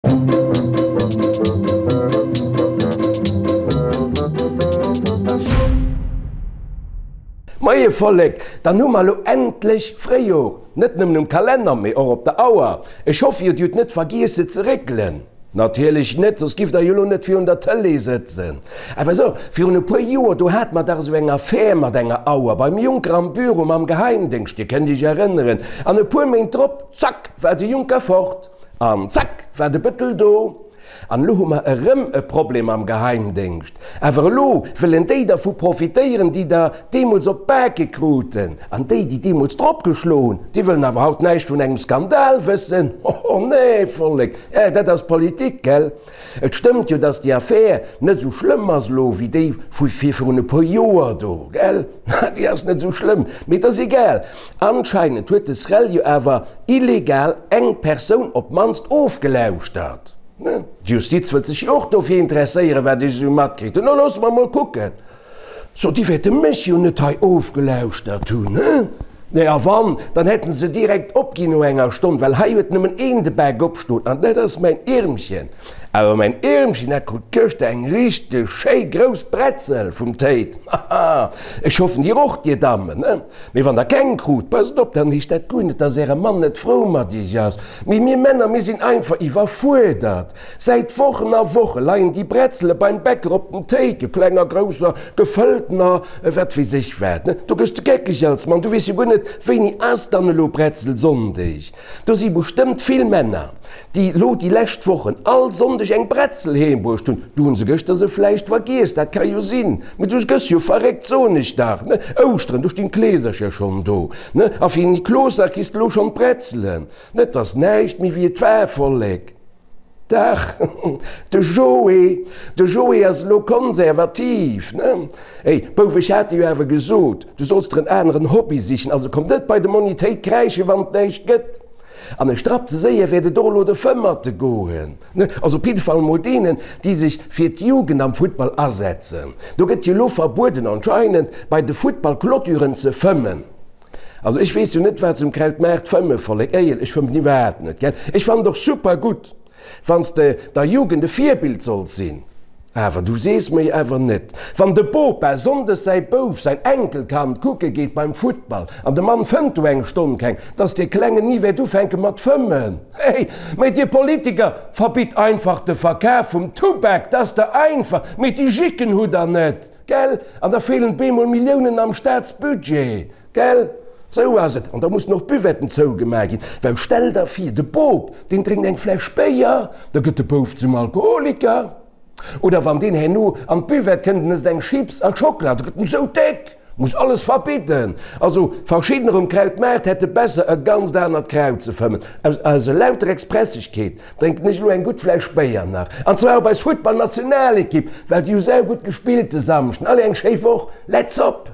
Moie Vollek, dann hu mer elo endlech Fréijor, net nëmmen um Kalenner, mee och op der Auer. Ech hoffe jo, dir hutt net vergiess se ze réckelen. Natierlech net, soss giff der jo elo net virun der Tëlee sëtzen. Awer sou, virun e puer Joer, do hate mer dach esou eng Affär mat enger Auer beim Juncker am Büro mam Geheimdéngscht, dir kënnt iech erënneren. An e puer Méint drop, zack, war de Juncker fort. An zack war de Bëttel do. An elo hu mer erëm e Problem am Geheimdéngscht. Awer elo wëllen déi dervu profitéieren, déi der deemools op d'Bake kruten. An déi, déi deemools drop geschlo hunn, déi wëllen awer haut näischt vun engem Skandal wëssen. Hoho, nee, Vollek, eh, dat ass Politik, gell? Et stëmmt jo, dass déi Affär net esou schlëmm ass elo wéi déi vu virun e puer Joer do, gell? Déi ass net esou schlëmm, mee et ass egal. Anscheinend huet de SREL jo awer illegal eng Persoun op d'mannst ofgelauschtert. D'Justiz wëllt sech jo och dofir interesséieren, wat ech esou matkritt hunn. No loosse mer mol kucken. So, déi wäerte mech jo net hei ofgelauschtert hunn, he? Nee, a wann, dann hätte se direkt opginn no enger Stonn, well hei huet nëmmen een de Bak opstoen, an dat ass mäin Iermchen. Awer mäin Iermchen, dat krut gëschter eng richteg schéi grouss Bretzel vum Téit. Haha, ech hoffen dir och, dir Dammen, he? Mee wann der keng krut, passt op, dann heescht dat guer net, dass äre Mann net frou mat iech ass. Mee mir Männer, mir sinn einfach iwwerfuerdert. Säit Wochen a Woche leien déi Bretzele beim Bäcker op den Théike, klenger, grousser, gefëlltener, wat weess ech wat. Do gëss de geckeg als Mann, du weess jo guer net, wéini ass dann elo Bretzelsonndeg. Do si bestëmmt vill Männer, déi lo déi lescht Wochen all Sonndeg eng Bretzel heem bruecht hunn. Du hunn se gëschter se vläicht vergiess, dat ka jo sinn. Mee du gëss jo verréckt, soen ech dach, ne? Ouschteren, do stinn d'Kleesercher schonn do, ne? A fir Niklosdag kriss de lo schonn d'Bretzelen. Et ass näischt méi wéi et war, Vollek. Dach, de Joé, de Joé ass elo konservativ, ne? Ey, Bouf, ech hat dir jo awer gesot, du solls der en aneren Hobby sichen, also komm net bei de Monni Téit kräische wann et näischt gëtt. An e Strapp ze séier wäert et och elo de Fëmmerte goen, ne? Also op jidde Fall emol deenen, déi sech fir d'Jugend am Futtball asetzen. Do gëtt jo elo verbueden anscheinend, bei de Futtballclôturen ze fëmmen. Also ech weess jo net wat se um Krautmaart fëmmen, Vollek, éiel, ech fëmmen iwwerhaapt net, gell. Ech fannen et och super gutt, wann s de der Jugend e Virbild solls sinn, awer du sees mer jo awer net, wann de Bopa sonndes säi Bouf, säin Enkelkand kucke geet beim Futtball an de Mann fëmmt do eng Stonn keng, dass dee Klengen ni wäert ufänke mat fëmmen. Hey, mee dir Politiker, verbitt einfach de Verkaf vum Tubak, dat ass der einfach, mee déi Jicken hutt der net. Gell? An da feelen bemol Milliounen am Staatsbudget. Gell? Sou ass et. An da mussen och d'Buvetten zougemaach ginn. Well stell der vir, de Bop, deen drénkt eng Fläsch Béier, da gëtt de Bouf zum Alkoholiker. Oder wann deen herno an d'Buvette kënnt en ësst eng Chips a Schockela, da gëtt en esou déck. Muss alles verbidden. Also verschiddener um Krautmaart hätte besser e ganzt anert Kraut ze fëmmen. Aus aus elauter Expressegkeet drénken ech elo eng gutt Fläsch Béier nach. An zwar op eis Futtballnationalekipp, well déi hu saugutt gespillt de Samschden. Allez, eng schéi Woch. Let's op!